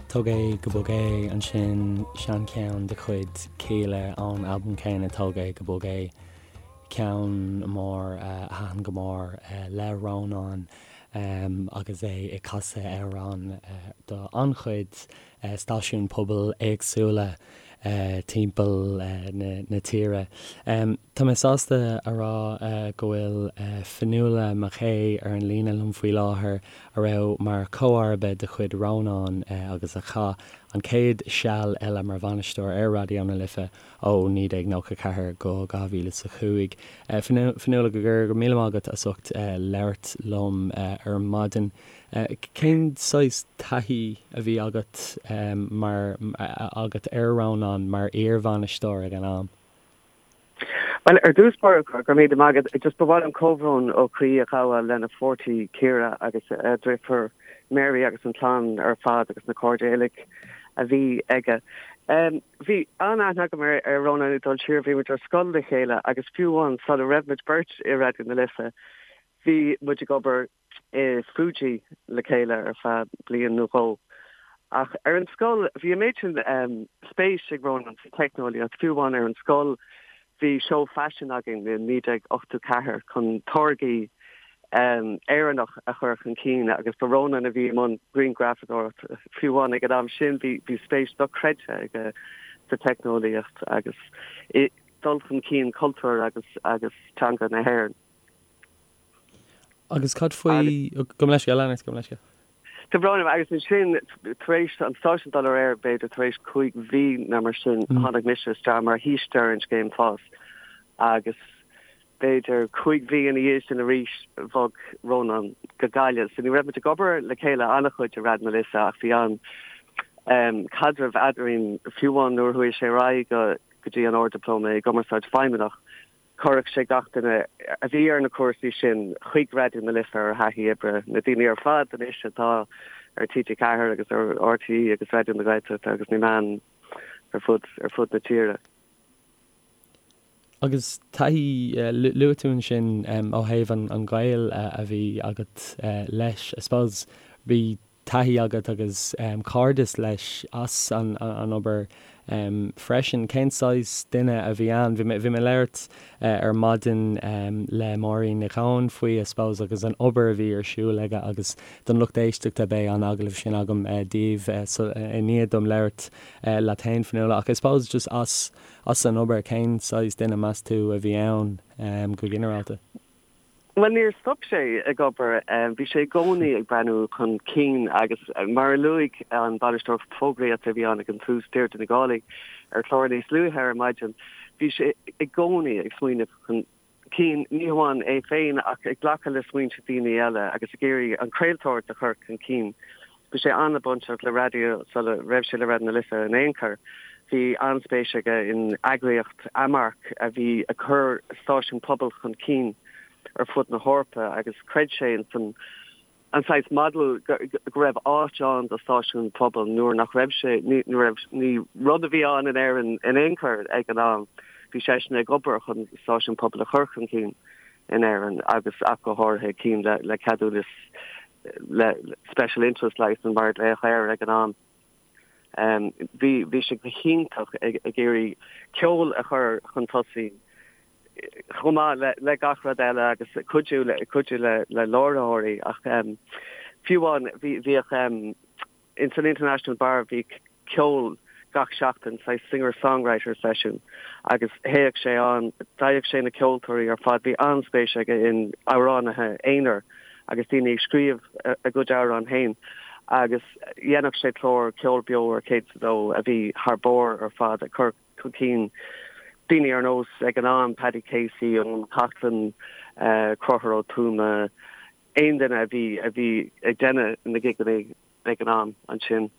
Tóg é go Bog É ansin, seancheann de chuid Kíla ón albam céanna Tóg é go Bog É, ceann mór a thaitin go mór le Rónán agus é ag casadh amhrán do an-chuid stáisiún pobail éagsúla timpeall na tíre. Tá mé sásta a rá go bhfuil Fionnuala McKay ar an líne liom faoi láthair, a raibh mar chomharba de chuid Rónáin agus a chaith an chéad seal eile mar bhainisteoir ar Raidió na Life ó 1994 go 2005. Fionnuala, go raibh míle maith agat as ucht labhairt liom ar maidin. Cén saghas taithí a bhí agat mar agat ar Rónán mar iar-bhainisteoir ag an am? Bhuel, ar dtús báire, go raibh míle maith agat. Just ba mhaith liom comhbhrón ó chroí a ghabháil lena pháirtí Ciara agus a deirfiúr Mary agus an chlann ar fad agus na cairde uilig a bhí aige. Bhí an-aithne agam ar Rónán ag dul siar, bhí muid ar scoil le chéile agus fiú amháin sula raibh muid beirt i Raidió na Life bhí muid ag obair i Fuji le chéile ar feadh bliain nó dhó. Ach ar an scoil, bhí an méid sin spéis ag Rónán sa teicneolaíocht, fiú amháin ar an scoil bhí seó faisin againn i 1984 chun táirgí Éireannach a chur chun cinn agus ba Rónán a bhí i mbun grianghrafadóireacht. Fiú amháin ag an am sin bhí spéis dochreidte aige sa teicneolaíocht agus i dul chun cinn cultúr agus agus teanga na hÉireann. Agus cad faoi, gabh mo leithscéal, lean ort, gabh mo leithscéal. Tá brón orm, agus ansin, tar éis an stáisiún dul ar aer, b'fhéidir tar éis 5 mhí nó mar sin, tháinig mise isteach mar shaoiste ar an scéim FÁS agus b'fhéidir 5 mhí ina dhiaidh sin arís bhog Rónán go Gaillimh. So ní raibh muid ag obair le chéile an-chuid i Raidió na Life ach bhí an caidreamh eadrainn fiú amháin nuair a chuaigh sé ar aghaidh go dtí an Ard-Dioplóma i gCumarsáid Feidhmeannach. Chuireadh sé gach duine a bhí ar na cúrsaí sin chuig Raidió na Life ar thaithí oibre, na daoine ar fad anois atá ar TG4 agus ar RTÉ agus Raidió na Gaeltachta agus na meáin ar fud ar fud na tíre. Agus taithí, luaigh tú ansin ó thaobh an ghaol a bhí agat leis, I suppose bhí taithí agat agus cairdeas leis as an obair freisin. Cén saghas duine a bhí ann? Bhí mé ag labhairt ar maidin le Máirín Nic Eoin faoi, I suppose, agus an obair a bhí ar siúl aige agus don lucht éisteachta beidh an agallamh sin agam daoibh i ndiaidh dom labhairt leat féin, Fionnuala. Ach I suppose just as as an obair, cén saghas duine meas tú a bhí ann go ginearálta? Bhuel, níor stop sé ag obair. Bhí sé i gcónaí ag breathnú chun cinn agus mar a luaigh an bainisteoir fógraíochta a bhí ann ag an tús, Deirdre Nic Álaigh, ar chlár níos luaithe ar maidin, bhí sé i gcónaí ag smaoineamh chun cinn, ní hamháin é féin ach ag glacadh le smaointe daoine eile agus ag iarraidh an chraoltóireacht a chur chun cinn. Bhí sé an-bainteach le raidió sula raibh sé le Raidió na Life in aon chor. Bhí an-spéis aige in eagraíocht Amarc a bhí ag cur stáisiún pobail chun cinn ar fud na hEorpa agus chreid sé ins an an saghas model go raibh áit ann do stáisiún pobail nuair nach raibh sé ní raibh ní rud a bhí ann in Éirinn in aon chor ag an am. Bhí seisean ag obair chun stáisiún pobail a chur chun cinn in Éirinn agus ach go háirithe cinn le le ceadúnas le Special Interest Licence mar a glaodh air ag an am. Bhí bhí sé go hiontach ag ag iarraidh ceol a chur chun tosaigh chomh maith le le gach rud eile agus cuidiú le cuidiú le le láithreoirí ach fiú amháin bhí bhíodh Ins an International Bar bhí ceol gach seachtain, saghas singer-songwriter session, agus théadh sé ann, d'fhaigheadh sé na ceoltóirí ar fad, bhí an-spéis aige in amhránaithe aonair agus daoine ag scríobh a gcuid amhrán féin agus dhéanadh sé clár ceol beo ar 102 a bhí thar barr ar fad ag cur chun cinn daoine ar nós ag an am Paddy Casey, Eoin Coughlan, Conchúr Ó Tuama, aon duine a bhí a bhí ag déanamh na gigeanna ag an am ansin.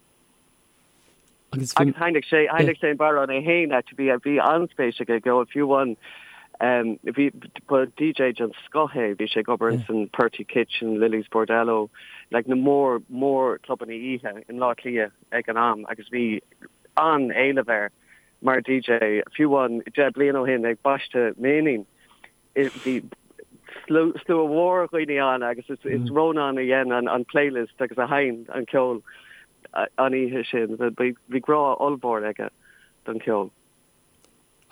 Agus sheinneadh sé sheinneadh sé an bodhrán é féin actually bhí bhí an-spéis aige i gceol fiú amháin bhí ba DJ den scoth é bhí sé ag obair ins an Purty Kitchen, Lily's Bordello, like na mór mór clubanna oíche i mBleá Cliath ag an am agus bhí an-éileamh air mar DJ fiú amháin 10 bliain ó shin ag baisteadh m'iníon. Bhí slua mhór dhaoine ann agus is Rónán a dhein an playlist agus a sheinn an ceol. an oíche sin. Bhí grá ollmhór aige don cheol.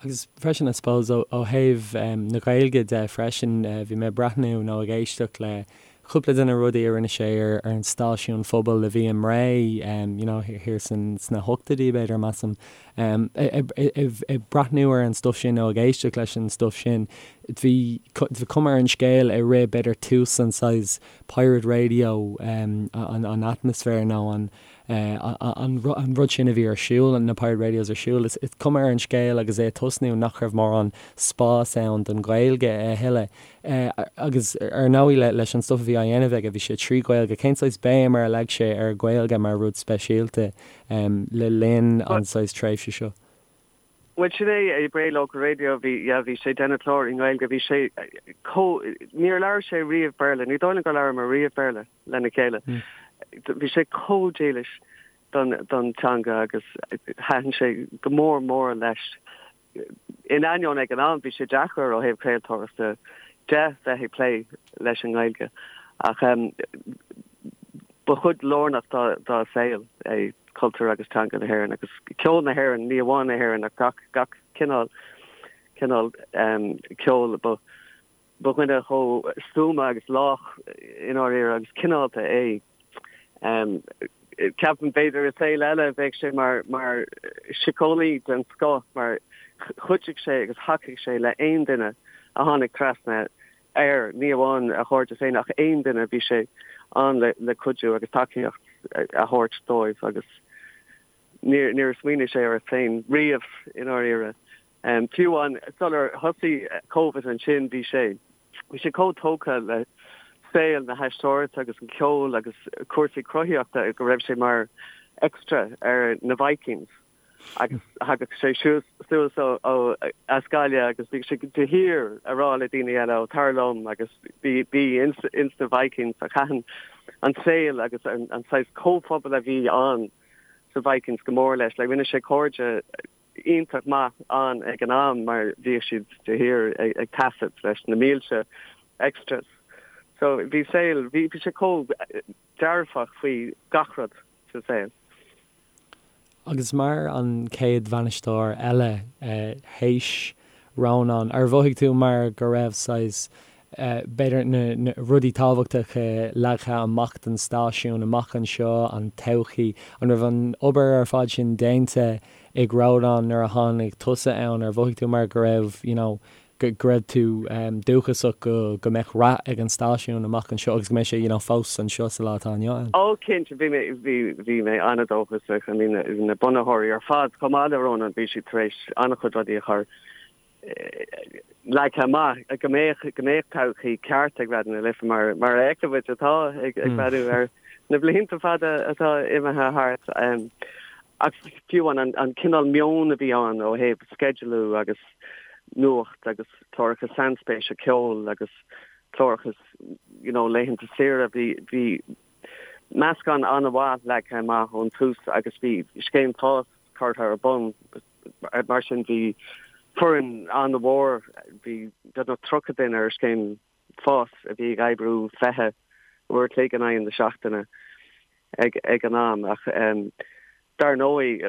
Agus freisin, I suppose, ó thaobh na Gaeilge de freisin, bhí mé ag breathnú nó ag éisteacht le cúpla de na rudaí a rinne sé ar an stáisiún phobail a bhí i mBré, you know, thiar sna hochtóidí, b'fhéidir, measaim. Ag breathnú ar an stuif sin nó ag éisteacht leis an stuif sin, bhí cuma ar an scéal i rith, b'fhéidir, tús an saghas pirate radio, an atmaisféar nó an an rud sin a bhí ar siúl, na pirate radios ar siúl, is cuma ar an scéal agus é ag tosnú nach raibh mórán spás ann don Ghaeilge a thuilleadh. Agus ar ndóigh leis an stuif a bhí á dhéanamh aige, bhí sé trí Ghaeilge. Cén saghas béim ar a leag sé ar Ghaeilge mar rud speisialta le linn an saghas tréimhse seo? Bhuel, sin é, i Bray Local Radio, bhí, yeah, bhí sé ag déanamh clár i nGaeilge, bhí sé chomh, níor labhair sé riamh Béarla, ní dóigh liom gur labhramar riamh Béarla lena chéile. Bhí sé chomh dílis don, don teanga agus thaitin sé go mór mór leis. In ainneoin ag an am, bhí sé deacair ó thaobh craoltóireachta de bheith ag plé leis an nGaeilge ach ba chuid lárnach dá, dá saol é. cultúr agus teanga na hÉireann agus ceol na hÉireann, ní amháin na hÉireann ach gach, gach cineál, cineál ceoil. Ba, ba dhuine chomh stuama agus lách i ndáiríre agus cineálta é. Ceapaim b'fhéidir i saol eile bheadh sé mar, mar síceolaí den scoth mar chuidigh sé agus thacaigh sé le aon duine a tháinig trasna air, ní amháin a chairde féin ach aon duine, bhí sé ann le cuidiú agus tacaíocht a thabhairt dóibh agus níor níor smaoinigh sé air féin riamh i ndáiríre. Fiú amháin sular thosaigh Covid ansin bhí sé bhí sé chomh tógtha le saol na haisteoireachta agus an ceol agus cúrsaí cruthaíochta go raibh sé mar extra ar na Vikings. agus thagadh sé suas ó as Gaillimh agus bhí sé de shíor ag rá le daoine eile ó tar liom agus bí bí ins ins na Vikings ach thaitin an saol agus an an saghas comhphobal a bhí ann sa Vikings go mór leis. Like rinne sé cairde iontach maith ann ag an am mar bhíodh siad de shíor ag ag taifead leis na mílte extras. So bhí saol bhí bhí sé chomh dearfach faoi gach rud sa saol. Agus mar an chéad bhainisteoir eile théis Rónán, ar mhothaigh tú mar go raibh saghas, b'fhéidir, na rudaí tábhachtacha leagtha amach don stáisiún amach anseo, an todhchaí, an raibh an obair ar fad sin déanta ag Rónán nuair a tháinig tusa ann, ar mhothaigh tú mar go raibh, you know, go raibh tú dóchasach go go mbeadh rath ag an stáisiún amach anseo agus go mbeidh sé you know fós anseo sa lá atá inniu ann? Ó cinnte, bhí mé, bhí, bhí mé an-dóchasach. I mean na bunaitheoirí ar fad, chomh maith le Rónán, bhí siad tar éis an-chuid rudaí a chur leagtha amach go mbeadh, go mbeadh todhchaí ceart ag Raidió na Life mar, mar a fheiceann muid atá ag breathnú ar na blianta fada atá imithe thart. Ach fiú an, an cineál meon a bhí ann ó thaobh sceidealú agus nuacht agus cláracha sainspéise ceoil agus cláracha you know laethanta saoire bhí bhí meascán an-mhaith leagtha amach ón tús agus bhí scéim fás curtha ar bun mar sin bhí foireann an-mhór bhí beagnach 30 duine ar scéim fás a bhí ag oibriú 20 uair a chloig in aghaidh na seachtaine ag ag an am ach dar ndóigh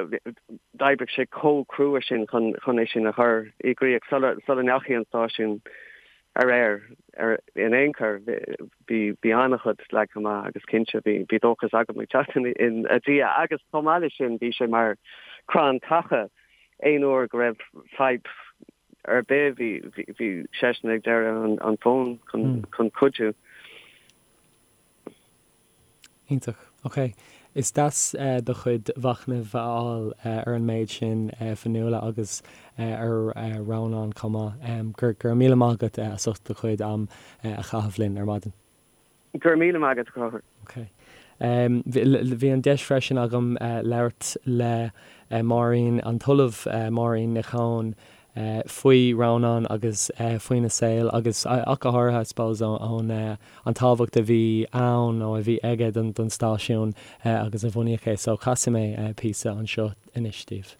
d'oibrigh sé chomh crua sin chun chun é sin a chur i gcrích sula sula ndeachaigh an stáisiún ar aer ar in aon chor bhí bhí an-chuid leagtha amach agus cinnte bhí bhí dóchas agam ag teacht in ina dhiaidh agus chomh maith leis sin bhí sé mar crann taca aon uair go raibh fadhb ar bith, bhí, bhí seisean ag deireadh an fóin chun, chun cuidiú. Iontach. Ok. Is deas do chuid mhachnaimh a fháil ar an méid sin, Fionnuala, agus ar Rónán chomh maith. Go raibh míle maith agat as ucht do chuid am a chaitheamh linn ar maidin. Go raibh míle maith agat, a Chonchúir. Ok. Bhí an deis freisin agam labhairt le Máirín, an tOllamh Máirín Nic Eoin, faoi Rónán agus faoina saol agus ach go háirithe, I suppose, ón an tábhacht a bhí ann nó a bhí aige don stáisiún agus a bunaíodh é. So casfaidh mé píosa anseo anois daoibh.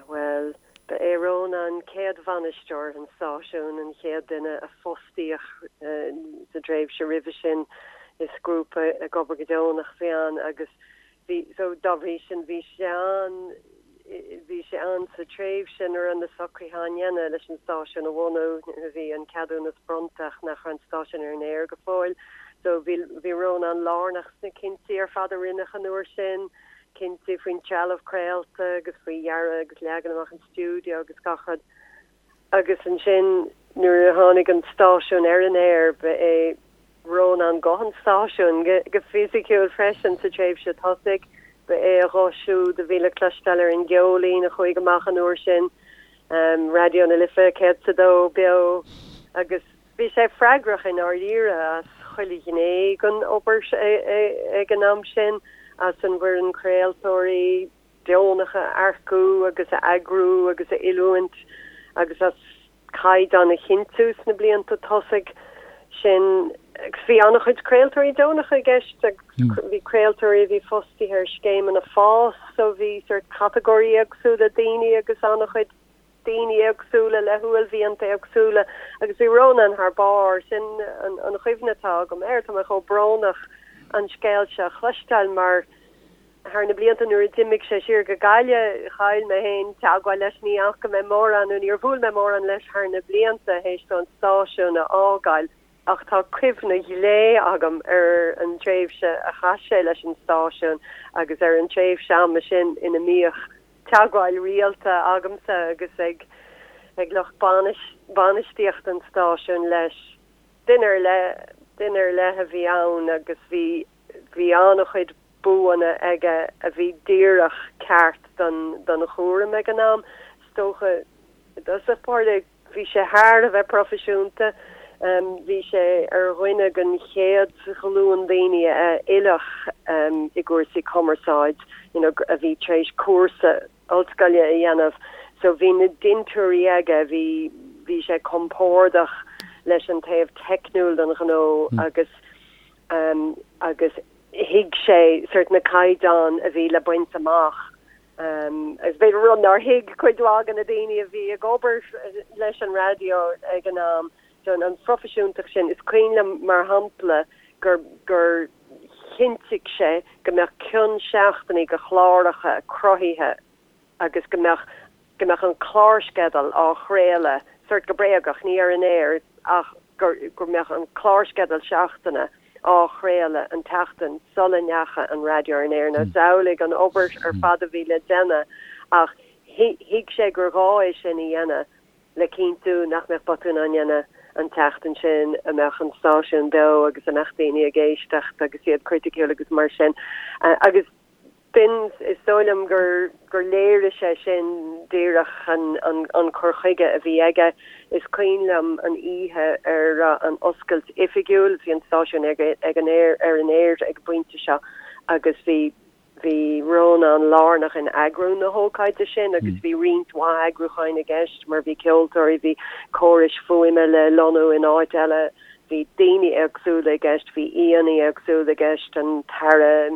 Bhuel, ba é Rónán céad bhainisteoir an stáisiúin, an chéad duine a fostaíodh sa dtréimhse roimhe sin. Is grúpa ag obair go deonach a bhí ann agus. Bhí, so dá bhrí sin bhí sé ann, bhí sé ann sa tréimhse nuair a raibh na socruithe á ndéanamh leis an stáisiún a bhunú, nuair a bhí an ceadúnas bronnta ach nach raibh an stáisiún ar an aer go fóill. So bhí, bhí Rónán lárnach sna cinntí ar fad a rinneadh an uair sin, cinntí faoin trealamh craolta agus faoi dhearadh agus leagan amach an stiúideo agus gach rud. Agus ansin nuair a tháinig an stáisiún ar an aer ba é Rónán guth an stáisiúin go fisiciúil freisin sa tréimhse tosaigh. Ba é a ghuth siúd a bhí le cloisteáil ar an gceoilín a chuaigh amach an uair sin, Raidió na Life 102 beo, agus bhí sé freagrach i ndáiríre as chuile ghné den obair ag an am sin, as an bhfoireann craoltóirí, deonacha a earcú agus a eagrú agus a oiliúint agus as caighdeán a chinntiú sna blianta tosaigh sin. Agus bhí an-chuid craoltóirí deonacha i gceist agus bhí craoltóirí a bhí fostaithe ar scéimeanna fás so bhí sort catagóirí éagsúla daoine agus an-chuid daoine éagsúla le huaillmhianta éagsúla agus bhí Rónán thar barr. Sin an chuimhne atá agam air. Tá mé chomh brónach an scéal seo a chloisteáil mar Thar na blianta nuair a d'imigh sé siar go Gaillimh, chaill mé féin teagmháil leis, ní fhaca mé mórán nó níor bhuail mé mórán leis thar na blianta théis dó an stáisiún a fhágáil ach tá cuimhne ghlé agam ar an tréimhse a chaith sé leis an stáisiún agus ar an tréimhse ama sin ina mbíodh teagmháil rialta agamsa agus ag ag lucht bainistíochta an stáisiúin leis. Duine ar leith, duine ar leith a bhí ann agus bhí Bhí an-chuid buanna aige a bhí díreach ceart don chúram ag an am. Is dócha, i dtosach báire, bhí sé thar a bheith proifisiúnta. Bhí sé ar dhuine den chéad ghlúin daoine a oileadh i gcúrsaí cumarsáid, you know, a bhí tar éis cúrsa ollscoile a dhéanamh. So bhí na dintiúirí aige, bhí, bhí sé compordach leis an taobh teicniúil den ghnó agus, agus thuig sé sort na caighdeáin a bhí le baint amach agus b'fhéidir rud nár thuig cuid mhaith de na daoine a bhí ag obair leis an raidió ag an am. So an phroifisiúntacht sin, is cuimhin liom mar shampla gur gur chinntigh sé go mbeadh cion seachtainí de chláracha cruthaithe agus go mbeadh go mbeadh an clársceideal á chraoladh sort go bréagach, ní ar an aer ach gur go mbeadh an clársceideal seachtaine á chraoladh an tseachtain sula ndeachaigh an raidió ar an aer. Now samhlaigh an obair ar fad a bhí le déanamh ach thuig sé gur ghá é sin a dhéanamh le cinntiú nach mbeadh botúin á ndéanamh an tseachtain sin, a mbeadh an stáisiún beo agus a mbeadh daoine ag éisteacht agus iad criticiúil agus mar sin. Agus B'in, is dóigh liom gur gur léirigh sé sin díreach an an cur chuige a bhí aige. Is cuimhin liom an oíche ar an oscailt oifigiúil, bhí an stáisiún ag ag an aer ar an aer ag an bpointe seo agus bhí bhí Rónán lárnach in eagrú na hócáide sin agus bhí roinnt mhaith eagrúcháin i gceist mar bhí ceoltóirí, bhí córais fuaime le lonnú in áit eile. Bhí daoine éagsúla i gceist, bhí aíonna éagsúla i gceist, an tAire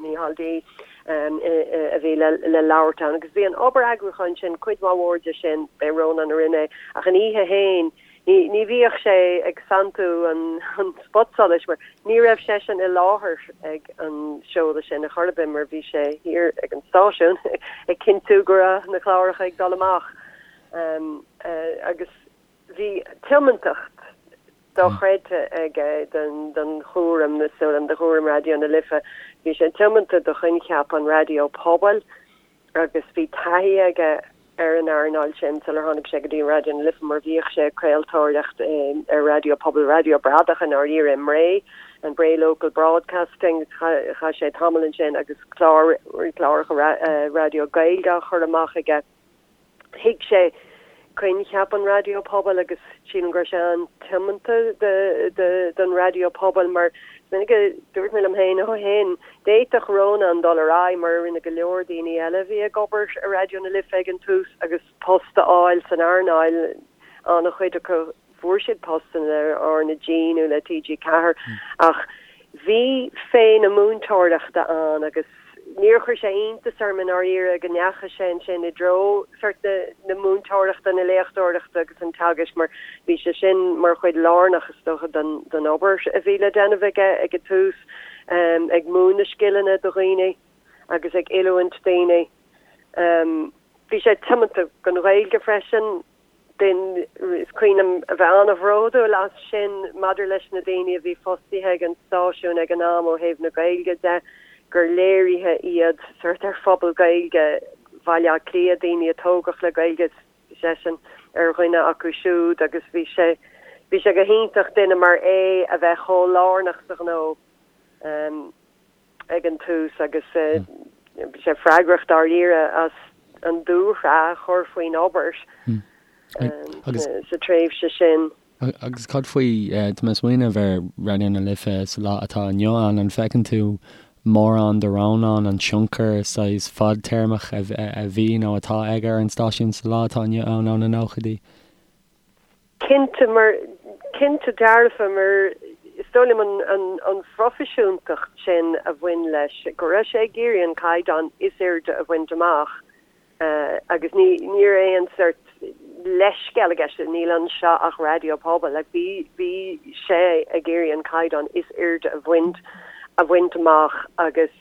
Micheál D. a bhí le labhairt ann agus bhí an obair eagrúcháin sin, cuid mhaith mhór de sin, b'é Rónán a rinne é, ach an oíche féin ní ní bhíodh sé ag santú an spotsolais mar ní raibh seisean i láthair ag an seoladh sin ar chor ar bith mar bhí sé thiar ag an stáisiún ag cinntiú go raibh na cláracha ag dul amach agus Bhí tiomantacht dochreidte aige don chúram, is dóigh liom, do chúram Raidió na Life. Bhí sé tiomanta do choincheap an raidió pobail agus bhí taithí aige ar an earnáil sin sular tháinig sé go dtí Raidió na Life mar bhíodh sé ag craoltóireacht ar raidió pobail, raidió bradach i ndáiríre i mBré, an Bray Local Broadcasting. Chaith sé tamall ansin agus clár, cláracha raidió Gaeilge á chur amach aige. Thuig sé coincheap an raidió pobail agus sílim go raibh sé an-tiomanta don raidió pobail mar is minic a dúirt mé liom féin ó shin, d'fhéadfadh Rónán dul ar aghaidh mar a rinne go leor daoine eile a bhí ag obair i Raidió na Life ag an tús agus post a fháil san earnáil, an-chuid acu Fuair siad postanna le RnaG nó le TG4 ach bhí féith na múinteoireachta ann agus níor chuir sé iontas orm i ndáiríre go ndeachaigh sé ansin i dtreo sort na múinteoireachta, na léachtóireachta agus an teagaisc mar bhí sé sin mar chuid lárnach is dócha den obair a bhí le déanamh aige ag an tús, ag múineadh scileanna do dhaoine. agus ag oiliúint daoine. Bhí sé tiomanta don Ghaeilge freisin. Is cuimhin liom a bheith an-bhródúil as sin maidir leis na daoine a bhí fostaithe ag an stáisiún ag an am ó thaobh na Gaeilge de, gur léirithe iad sórt ar phobal Gaeilge Bhaile Átha Cliath, daoine a tógadh le Gaeilge, bhí seisean ar dhuine acu siúd agus bhí sé bhí sé go hiontach duine mar é a bheith chomh lárnach sa ghnó. ag an tús agus bhí sé freagrach dáiríre as an dúshraith a chur faoin obair sa tréimhse sin. Agus cad faoi, tá mé ag smaoineamh ar Raidió na Life sa lá atá inniu ann, an bhfeiceann tú mórán de Rónán, an tionchar saghas fadtéarmach a bhí nó atá aige ar an stáisiún sa lá atá inniu ann ó na nóchaidí? Cinnte, mar, cinnte dearfa, mar is dóigh liom an, an, an phroifisiúntacht sin a bhain leis, go raibh sé ag iarraidh an caighdeán is airde a bhaint amach agus ní, ní raibh aon sórt leithscéal i gceist, níl anseo ach raidió pobail, like bhí, bhí sé ag iarraidh an caighdeán is airde a bhaint, a bhaint amach agus.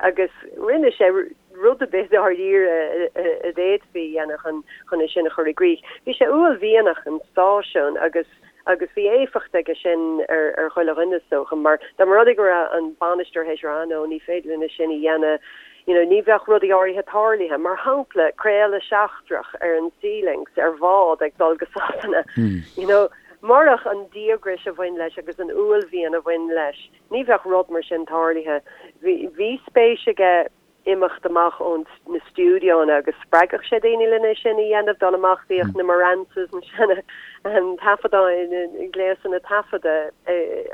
Agus rinne sé rud ar bith dáiríre a d'fhéadfaí a dhéanamh chun chun é sin a chur i gcrích. Bhí sé uaillmhianach an stáisiún agus agus bhí éifeacht aige sin ar ar chuile dhuine is dócha mar dá mba rud é go raibh an bainisteoir théis rá no ní féidir linn é sin a dhéanamh you know ní bheadh rudaí áirithe tarlaithe. Mar shampla craoladh seachtrach ar an Sea Lynx ar bhád ag dul go Sasana you know murach an díograis a bhain leis agus an uaillmhian a bhain leis Ní bheadh rud mar sin tarlaithe. Bhí spéis aige imeacht amach ó na stiúideonna agus spreagadh sé daoine lena sin a dhéanamh, dul amach, bhíodh na Marantzes, na seana taifeadáin, na gléasanna taifeadta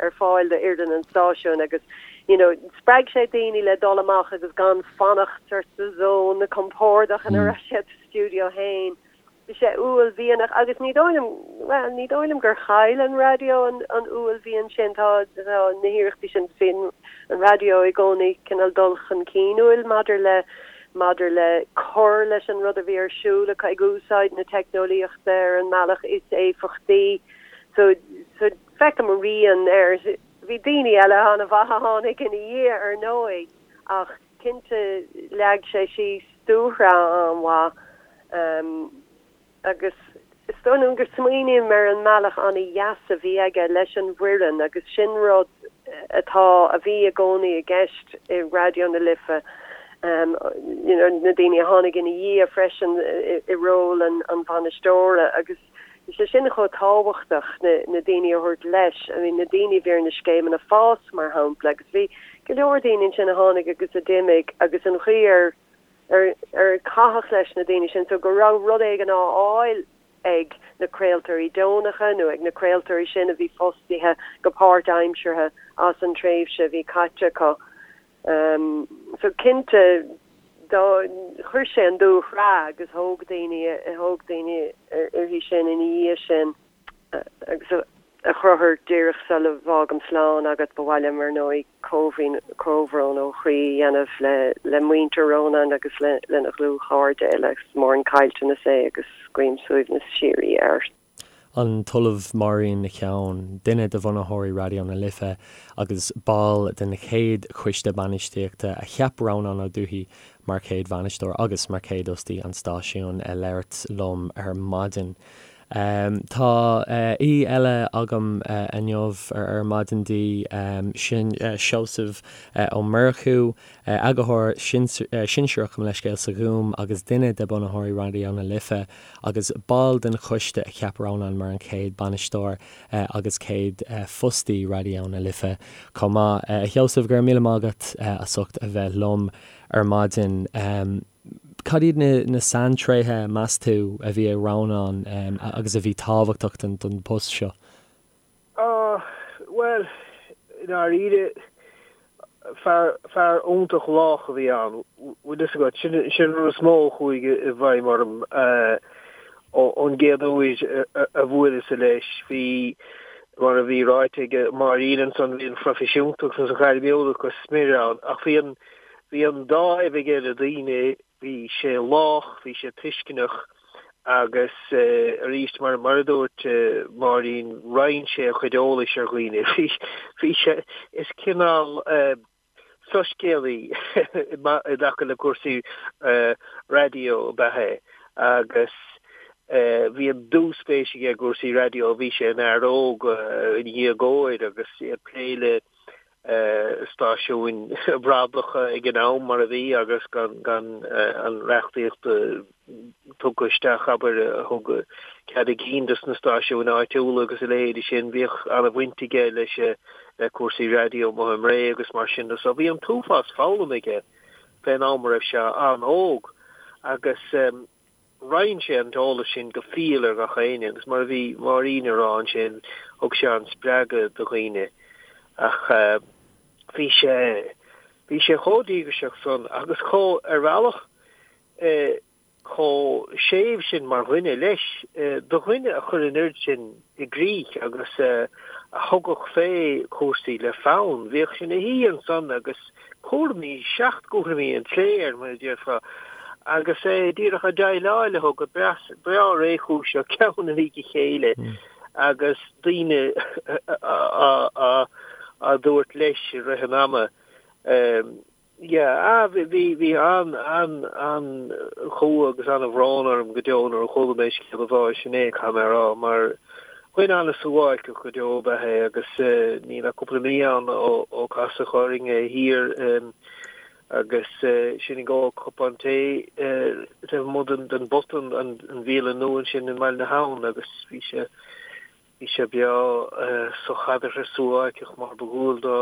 ar fáil do fhoireann an stáisiúin agus you know spreag sé daoine le dul amach agus gan fanacht sort sa zone compordach ina raibh siad sa stiúideo féin. Bhí sé uaillmhianach agus ní dóigh liom, bhuel, ní dóigh liom gur chaill an raidió an an uaillmhian sin. Tá tá na hiarrachtaí sin, bhí an raidió i gcónaí cineál dul chun cinnúil maidir le maidir le cur leis an rud a bhí ar siúl acu, ag úsáid na teicneolaíochta ar an mbealach is éifeachtaí. So so feicim a rian air. Bhí daoine eile an-mhaith a tháinig ina dhiaidh ar ndóigh ach cinnte leag sé síos dúshraith an-mhaith. Agus is dóigh liom go smaoiním ar an mbealach an-dheas a bhí aige leis an bhfoireann agus sin rud atá, a bhí i gcónaí i gceist i Raidió na Life, you know na daoine a tháinig ina dhiaidh freisin i ról an an bhainisteora agus bhí sé sin chomh tábhachtach, na na daoine a thabhairt leis, I mean na daoine a bhí ar na scéimeanna fás mar shampla agus bhí go leor daoine ansin a tháinig agus a d'imigh agus an chaoi ar ar ar caitheadh leis na daoine sin so go raibh rud éigin á fháil ag na craoltóirí deonacha nó ag na craoltóirí sin a bhí fostaithe go páirtaimseartha as an tréimhse a bhí caite acu. So cinnte dá chuir sé an dúshraith agus thóg daoine thóg daoine uirthi sin ina dhiaidh sin. Agus a Chonchúir, díreach sula bhfágaim slán agat, ba mhaith liom, ar ndóigh, comhbhrón ó chroí a dhéanamh le muintir Rónáin agus lena dhlúthchairde uile. Is mór an caillteanas é agus guím suaimhneas síoraí air. An tOllamh Máirín Nic Eoin, duine de bhunaitheoirí Raidió na Life agus ball den chéad choiste bainistíochta a cheap Rónán Ó Dubhthaigh mar chéad bhainisteoir agus mar chéad fhostaí an stáisiúin, ag labhairt liom ar maidin. Tá aoi eile agam inniu ar maidin Dé, sin Seosamh Ó Murchú, Eagarthóir Sinsearach, mo leithscéal, sa Ghúm agus duine de bunaitheoirí Raidió na Life agus ball den choiste a cheap Rónán mar an chéad bainisteoir agus céad fostaí Raidió na Life chomh maith. A Sheosaimh, go raibh míle maith agat as ucht a bheith liom ar maidin. Cad iad na saintréithe, meas tú, a bhí ag Rónán agus a bhí tábhachtach don post seo? Bhuel, i ndáiríre, fear, fear iontach lách a bhí ann, bhfuil fhios agat. Sin, sin an rud is mó a chuaigh i bhfeidhm orm ón gcéad uair a bhuaileas-sa leis. Bhí, mar a bhí ráite ag Máirín ansan, bhí an phroifisiúntacht agus an ghairmiúlacht go smior ann ach bhí an, Bhí an dáimh aige le daoine, bhí sé lách, bhí sé tuisceanach agus arís, mar mar a dúirt Máirín, roinn sé a chuid eolais ar dhaoine. Bhí, bhí sé, is cineál. Soiscéalaí i dtaca le cúrsaí raidió ab ea é agus bhí an dúspéis aige i gcúrsaí raidió. Bhí sé ina fhear óg, ina dhéagóir agus é ag plé le stáisiúin bhradacha ag an am mar a bhí agus gan gan an reachtaíocht tugtha isteach, abair, a thug cead a gcinn dos na stáisiúin áitiúla agus a leithéidí sin. Bhíodh an-bhaint aige leis le cúrsaí raidió amuigh i mBré agus mar sin de. So bhí an t-uafás foghlama aige fén am a raibh sé an-óg agus roinn sé an t-eolas sin go fial ar gach éinne agus mar a bhí Máirín a rá ansin, thug sé an-spreagadh do dhaoine. Ach bhí sé, bhí sé chomh díograiseach san agus chomh, ar bhealach, chomh séimh sin mar dhuine leis, do dhuine a chuir an oiread sin i gcrích agus a thugadh fé chúrsaí le fonn. Bhíodh sé ina shuí ansan agus cúraimí, seachtchúraimí an tslé air, mar a déarfá, agus é díreach ag déileáil leo go breá réchúiseach, ceann i ndiaidh a chéile, agus daoine á dtabhairt leis i rith an ama. Yeah, ah, bhí, bhí, bhí an, an, an-chumha agus an-bhrón orm go deo nuair a chuala mé scéal a bháis inné, caithfidh mé a rá, mar dhuine an-suáilceach go deo ab ea é agus níl ach cúpla mí ann ó, ó casadh orainn é thiar agus sinn ag ól cupán tae taobh amuigh den, den bPota, an, an bhialann nua ansin i mBaile na hAbhann agus bhí sé, Bhí sé breá sochaideartha suáilceach mar ba dhual dó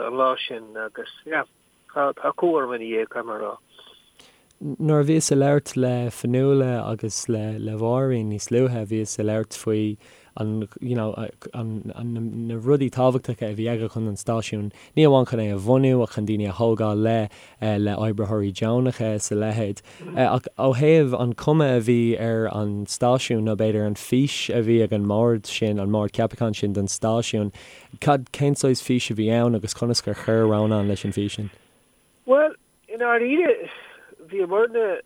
an lá sin agus yeah, tá cumha orm ina dhiaidh, caithfidh mé a rá. Nuair a bhíos ag labhairt le Fionnuala agus le le Máirín níos luaithe, bhíos ag labhairt faoi an you know an an na rudaí tábhachtacha a bhí aige chun an stáisiún, ní amháin chun é a bhunú ach chun daoine a thógáil le le oibritheoirí deonacha is a leithéid. Ach ó thaobh an chuma a bhí ar an stáisiún, nó b'fhéidir an fís a bhí ag an mbord sin, an mbord ceapacháin sin don stáisiún, cad, cén saghas fís a bhí ann agus conas gur chuir Rónán leis an bhfís sin? Bhuel, i ndáiríre, bhíomarna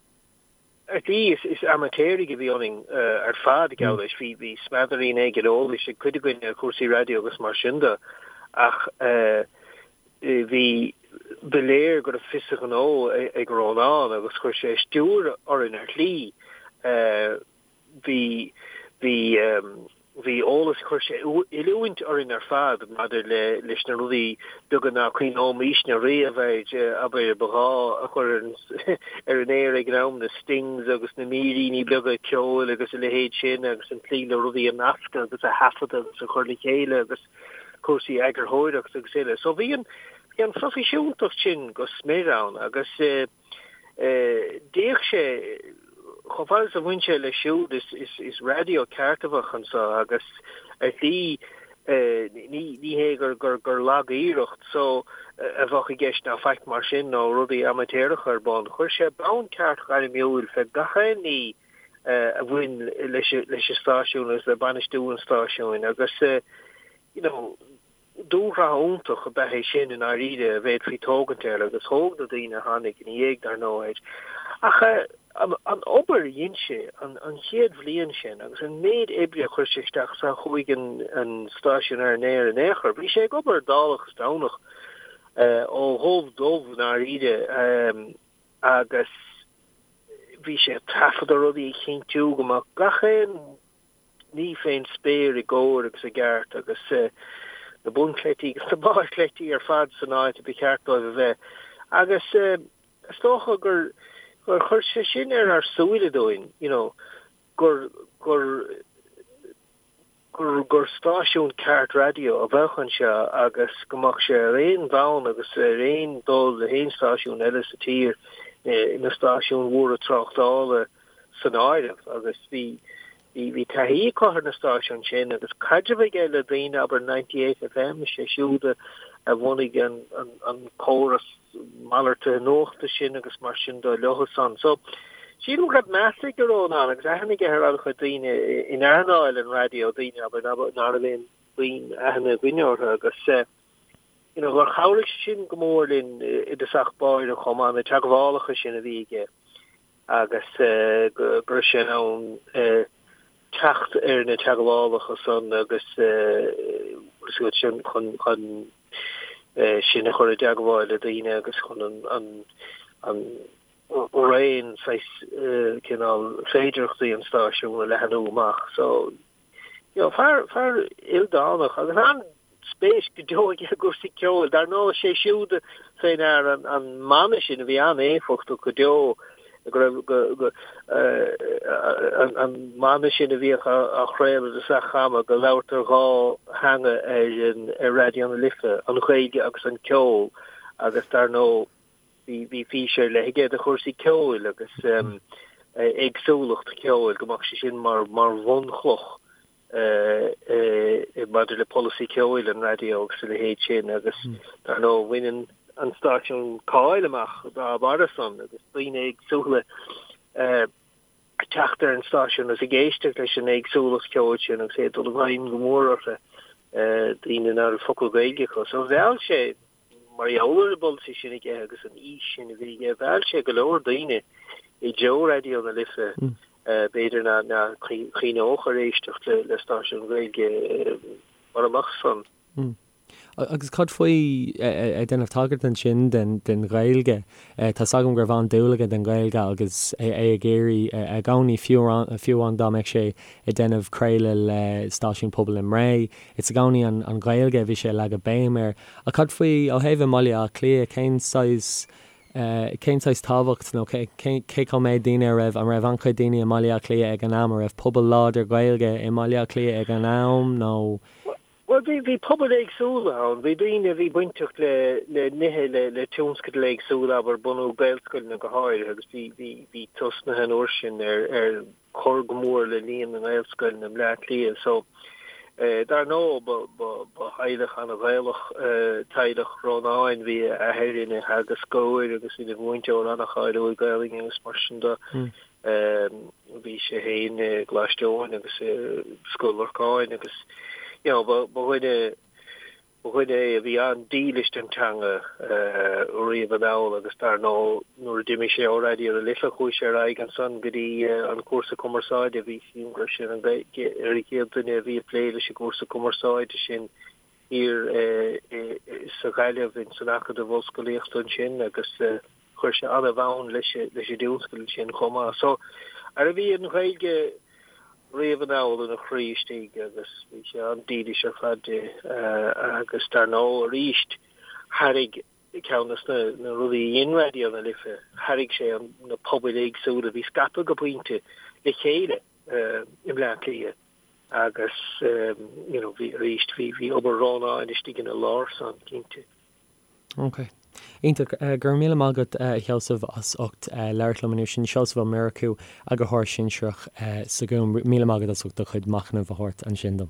ar shlí, is amaitéaraigh a bhí ionainn ar fad, geall leis. Bhí, bhí smeadairín éigin eolais ag cuid againn ar chúrsaí raidió agus mar sin de, ach bhí, ba léir go raibh fios a ghnó ag Rónán agus chuir sé stiúir orainn ar shlí. Bhí, bhí, bhí eolas, chuir sé oiliúint orainn ar fad maidir le, leis na rudaí beaga ná cuimhneoimisne riamh air, abair, ba ghá a chur ar an, ar an aer ag an am, na stings agus na míríní beaga ceoil agus a leithéid sin agus an tslí le rudaí a nascadh agus a thaifeadadh agus a chur le chéile agus cúrsaí eagarthóireachta agus uile. So bhí an, bhí an phroifisiúntacht sin go smior ann agus eh, D'fhéach sé, chomh fada is a bhain sé leis siúd, is raidió ceart a bheadh anseo agus ar shlí ní hé gur lag-iarracht so a bheadh i gceist ná faic mar sin nó rudaí amaitéaracha ar bun. Chuir sé bonn ceart gairmiúil fé gach aon ní a bhain leis an stáisiún agus le bainistiú an stáisiúin agus you know, Dúshraith iontach ab ea é sin i ndáiríre a bhféadfaí tógaint air agus thóg na daoine a tháinig ina dhiaidh, dar ndóigh, air. Ach an obair a dhein sé an chéad bhliain sin agus an méid oibre a chuir sé isteach sar chuaigh an stáisiún ar an aer in aon chor, bhí sé ag obair dálach is Domhnach ó dhubh dubh i ndáiríre agus bhí sé ag taifeadadh rudaí ag cinntiú go mbeadh gach aon ní fén spéir i gcóir agus i gceart agus na bunchleití agus na barrchleití ar fad san áit a ba cheart dóibh a bheith. Agus is dócha gur gur chuir sé sin ar ár súile dúinn, you know, gur gur gur gur stáisiún ceart raidió a bheadh anseo agus go mbeadh sé ar aon bhonn agus ar aon dul le haon stáisiún eile sa tír, na stáisiúin mhóra tráchtála. san áireamh agus bhí bhí taithí acu ar na stáisiúin sin agus caidreamh aige le daoine, abair 98 FM, sé siúd a bhunaigh an an córas malartaithe nuachta sin agus mar sin de leo san. So sílim go raibh meas ag Rónán agus aithne aige ar an-chuid daoine in earnáil an raidió, daoine abair ná raibh aon puinn aithne againne orthu agus you know gur chabhraigh sin go mór linn i dtosach báire chomh maith, na teagmhálacha sin a bhí aige. agus go raibh sé in ann teacht ar na teagmhálacha san agus sin chun chun. Sinn a chur i dteagmháil le daoine agus chun an raon saghas cineál féidearthachtaí an stáisiúin a leathanú amach. So, you know, fear, fear ildánach agus an-spéis go deo aige i gcúrsaí ceoil. Dar ndóigh, sé siúd fé ndear an, an mana sin a bhí an-éifeachtach go deo go raibh, go, go, an, an mana sin a bhíodh á, á chraoladh i dtosach ama, go labhartar dhá theanga ar an, ar Raidió na Life, an Ghaeilge agus an ceol agus dar ndóigh, Bhí bhí fís ar leith aige do chúrsaí ceoil agus éagsúlacht ceoil, go mbeadh sé sin mar mar bhunchloch maidir le polasaí ceoil an raidió agus a leithéid sin agus dar ndóigh bhain an an stáisiún cáil amach dá bharra san agus daoine éagsúla ag teacht ar an stáisiún agus ag éisteacht leis an éagsúlacht ceoil sin agus é ag dul i bhfeidhm go mór orthu, daoine nach raibh focal Gaeilge acu. So mheall sé Mar gheall ar an bpolasaí sin aige agus an fhís sin a bhí aige, mheall sé go leor daoine i dtreo Raidió na Life, b'fhéidir nach gcuimhneodh ar éisteacht le stáisiún Gaeilge mura mbeadh san. Agus cad faoi, ag déanamh tagairt ansin den Ghaeilge, tá's agam go raibh an-dúil aige don Ghaeilge agus é ag iarraidh i gcónaí, fiú amháin dá mbeadh sé ag déanamh craoladh le stáisiún pobail i mBré, Is i gcónaí an Ghaeilge a bhí sé ag leagadh béim air. Ach cad faoi, ó thaobh i mBaile Átha Cliath, cén saghas, cén saghas tábhacht nó cé, cé chomh méid daoine a raibh, an raibh an-chuid daoine i mBaile Átha Cliath ag an am, an raibh pobal láidir Gaeilge i mBaile Átha Cliath ag an am nó? Bhuel, bhí, bhí pobail éagsúla ann. Bhí daoine a bhí bainteach le, le nithe, le, le tionscadail éagsúla, abair, bunú Gaelscoileanna go háirithe agus bhí, bhí, bhí tosnaithe an uair sin ar, ar cur go mór le líon na nGaelscoileanna i mBleá Cliath. So, dar ndóigh, ba, ba, ba theaghlach an-Ghaelach teaghlach Rónáin. Bhí a athair ina theagascóir agus ina mhúinteoir an-cháiliúil Gaelainne agus mar sin de. Bhí sé féin i gColáiste Eoin agus i Scoil Lorcáin agus, you know, ba, ba dhuine, Ba dhuine é a bhí an-dílis don teanga riamh anall agus dar ndóigh nuair a d'imigh sé ó Raidió na Life chuaigh sé ar aghaidh ansan go dtí an cúrsa cumarsáide. Bhí sílim go raibh sé ar an gcéad duine a bhí ag plé leis an gcúrsa cumarsáide sin thiar sa Ghaillimh ins an Acadamh Ollscolaíochta ansin agus chuir sé an-bhonn leis an dtionscadal sin chomh maith. So, ara bhí an Ghaeilge riamh anall ina chroí istigh agus bhí sé an-dílis ar fad di agus dar ndóigh arís thairg ceann de na rudaí a dhein Raidió na Life, thairg sé na pobail éagsúla a bhí scaipthe go pointe le chéile i mBleá Cliath agus you know bhí arís bhí bhí obair Rónáin istigh ina lár san cinnte. Ok. Iontach. Go raibh míle maith agat, a Sheosaimh, as ucht labhairt liom inniu. Sin Seosamh Ó Murchú, Eagarthóir Sinsearach sa Ghúm. Míle maith agat as ucht do chuid machnaimh a thabhairt ansin dom.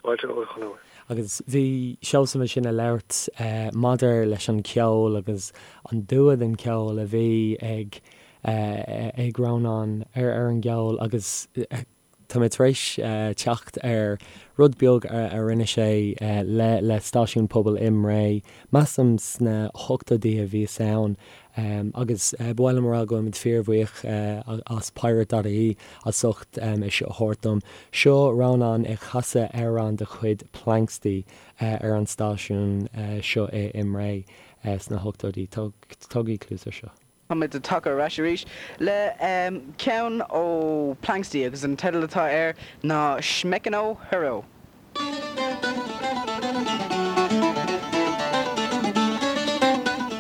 Fáilte romhat, a Chonchúir. Agus bhí Seosamh ansin ag labhairt maidir leis an cheol agus an dua den cheol a bhí ag ag Rónán ar an gceol agus Tá mé tar éis teacht ar rud beag a rinne sé le le stáisiún pobail i mBré, measaim sna hochtóidí a bhíos ann, agus ba mhaith liom a rá go bhfuilimid fíorbhuíoch as Pirate dot ie as ucht é seo a thabhairt dom. Seo Rónán ag casadh amhrán de chuid Planxty ar an stáisiún seo i mBré sna hochtóidí. Tógaigí cluas air seo. Táimid tagtha ar ais arís le ceann ó Planxty agus an teideal atá air ná Smekino Hero.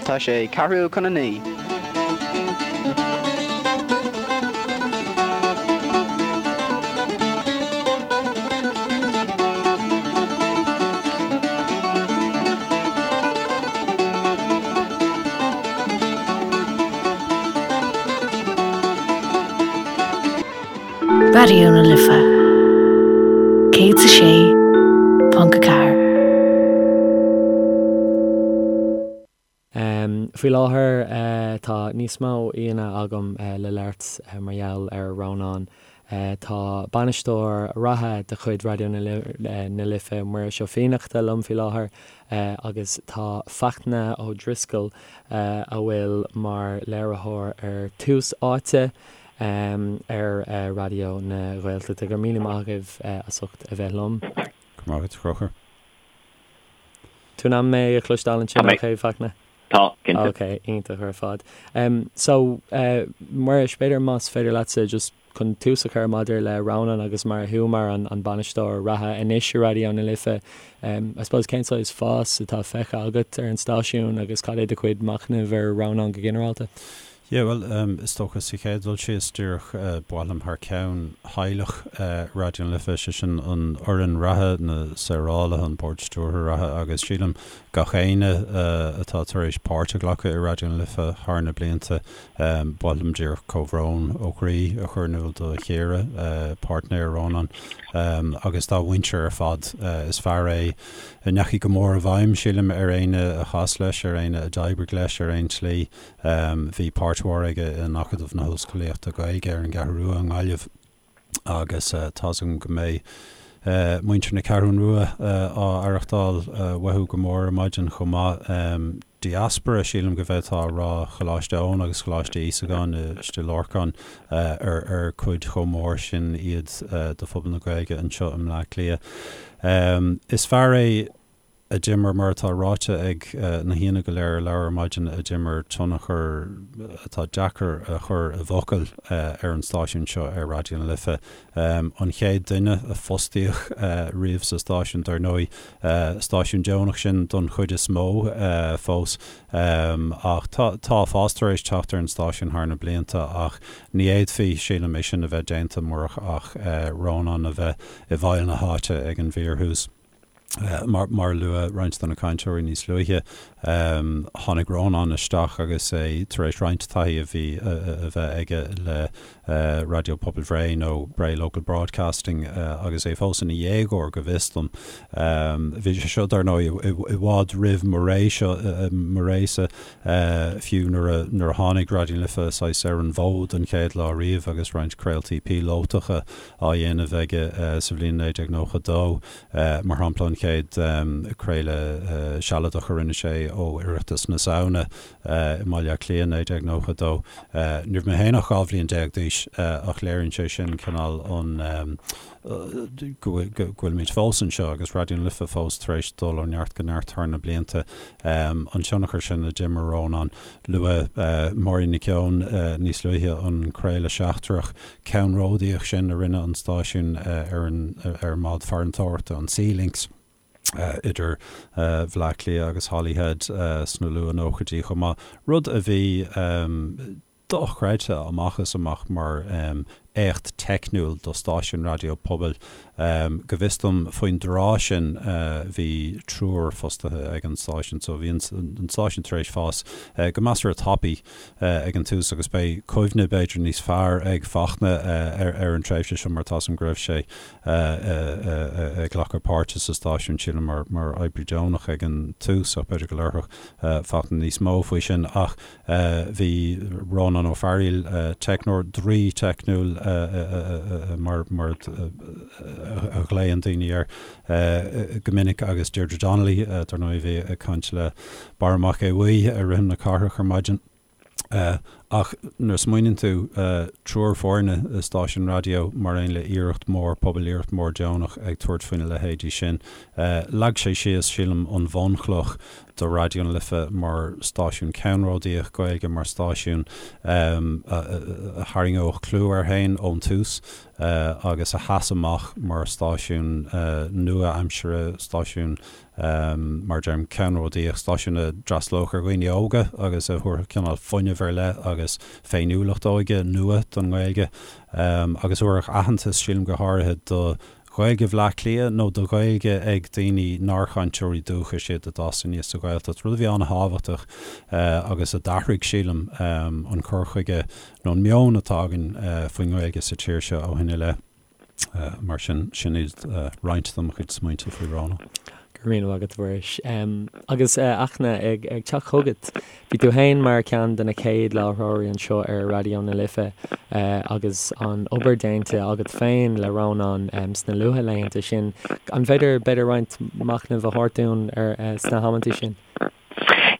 Tá sé ceathrú chun a 9. Raidió na Life 106.4. Faoi láthair tá níos mó aíonna agam le labhairt mar gheall ar Rónán. Tá bainisteoir reatha de chuid Raidió na Life, Muiris Ó Fiannachta, liom faoi láthair agus tá Fachtna Ó Drisceoil, a bhfuil mar léiritheoir ar Tús Áite ar Raidió na Gaeltachta. Go raibh míle maith agaibh as ucht a bheith liom. Go raibh maith agat, a Chonchúir. Tú in ann mé a chloisteáil ansin ok, Fachtna? Tá, cinnte. Ok, iontach ar fad. So, Muiris, b'fhéidir más féidir leatsa just chun tús a chur maidir le Rónán agus mar thú mar an bainisteoir reatha anois i Raidió na Life, I suppose cén saghas fás atá feicthe agat ar an stáisiún agus cad é do chuid machnaimh ar Rónán go ginearálta? Yeah, bhuel, is dócha sa chéad dul síos, díreach ba mhaith liom thar ceann theaghlach Raidió na Life, sé sin an fhoireann reatha, na saorálaithe, an bord stiúrtha reatha agus sílim gach éinne atá tar éis páirt a ghlacadh i Raidió na Life thar na blianta, ba mhaith liom díreach comhbhrón ó chroí a chur in iúl do Chiara, páirtnéir Rónán, agus dá mhuintir ar fad. Is fear é a ndeachaigh go mór i bhfeidhm, sílim, ar éinne a chas leis, ar éinne a d'oibrigh leis ar aon tslí. Bhí páirt mhór aige in Acadamh na hOllscolaíochta Gaeilge ar an gCeathrú Rua i nGaillimh agus tá's agam go mbeidh muintir na Ceathrún Rua á aireachtáil uathu go mór ar maidin chomh maith. Diaspora, sílim go bhféadfá a rá, Choláiste Eoin agus Choláiste Íosagáin i Stigh Lorcáin ar ar cuid chomh mór sin iad de phobal na Gaeilge anseo i mBleá Cliath. Is fear é a d'imir, mar atá ráite ag na haíonna go léir a labhair ar maidin, a d'imir tionchar atá deacair a chur i bhfocail ar an stáisiún seo, ar Raidió na Life. An chéad duine a fostaíodh riamh sa stáisiún, dar ndóigh, stáisiún deonach sin don chuid is mó fós, ach tá fás tar éis teacht ar an stáisiún thar na blianta ach ní fhéadfaí, sílim, é sin a bheith déanta murach ach Rónán a bheith i bhfeighil na háite ag an bhfíorthús. Mar a luadh roinnt de na cainteoirí níos luaithe, tháinig Rónán isteach agus é tar éis roinnt taithí a bhí a bheith aige le Raidió Pobail Bhré nó Bray Local Broadcasting agus é fós ina dhéagóir, go bhfios dom. Bhí sé seo, dar ndóigh, i bhfad roimh mo ré seo, mo résa, fiú nuair a tháinig Raidió na Life saghas ar an bhfód an chéad lá riamh agus roinnt craoltaí píolótacha á dhéanamh aige sa bhliain 1992. Mar shampla, an chéad craoladh sealadach a rinne sé ó Oireachtas na Samhna i mBaile Átha Cliath, 1992. Ní raibh mé féin ach 12 bhliain d'aois ach léiríonn sé sin cineál an go bhfuilimid fós anseo agus Raidió na Life fós tar éis dul ó neart go neart thar na blianta. An tionchar sin a d'imir Rónán. Luadh Máirín Nic Eoin níos luaithe, an craoladh seachtrach. ceannródaíoch sin a rinne an stáisiún ar an ar an mbád farantóireachta, an Sea Lynx, idir Bhleá Cliath agus Holyhead sna luath-nóchaidí chomh maith, rud a bhí dochreidte amach is amach mar éacht teicniúil do stáisiún raidió pobail. Go bhfios dom, faoin dtráth sin bhí triúr fostaithe ag an stáisiún, so bhí an stáisiún tar éis fás go measartha tapaidh ag an tús agus beidh cuimhne b'fhéidir níos fearr ag Fachtna ar an tréimhse seo mar tá's agam go raibh sé ag glacadh páirte sa stáisiún, sílim, mar oibrí deonach ag an tús ach b'fhéidir go labharfadh Fachtna níos mó faoi sin. Ach bhí Rónán Ó Fearaíl, teicneoir, draoi teicniúil mar a ghlaonn daoine air go minic agus Deirdre Donnelly, dar ndóigh, a bhí ag caint le Barra Mac Aodha Bhuí ar Rithim na Cathrach ar maidin. Ach nuair a smaoiníonn tú, triúr foirne i stáisiún raidió mar aon le iarracht mhór pobail, iarracht mhór deonach ag tabhairt faoina leithéidí sin, leag sé síos, sílim, an bhunchloch do Raidió na Life mar stáisiún ceannródaíoch Gaeilge, mar stáisiún a tharraingeodh clú air féin ón tús agus a sheas amach mar stáisiún nua-aimseartha, stáisiún, mar a deirim, ceannródaíoch, stáisiún a d'fhreastalódh ar dhaoine óga agus a thabharfadh cineál fuinneamh ar leith agus féiniúlacht óige nua don nGaeilge agus a thabharfadh aitheantas, sílim, go háirithe do Ghaeilge Bhleá Cliath nó do Ghaeilge ag daoine nár chainteoirí dúchais iad a d'fhás aníos sa Ghaeltacht, rud a bhí an-thábhachtach agus a d'athraigh, sílim, an cur chuige nó an meon atá againn faoin nGaeilge sa tír seo ó shin i leith. Mar sin, sin iad roinnt de mo chuid smaointe faoi Rónán. Go raibh míle maith agat, a Mhuiris. Agus, a Fhachtna, ag teacht chugat, bhí tú féin mar cheann de na chéad láithreoirí anseo ar Raidió na Life agus an obair déanta agat féin le Rónán sna luathlaethanta sin. An féidir, b'fhéidir, roinnt machnaimh a thabhairt dúinn ar sna hamanntaí sin?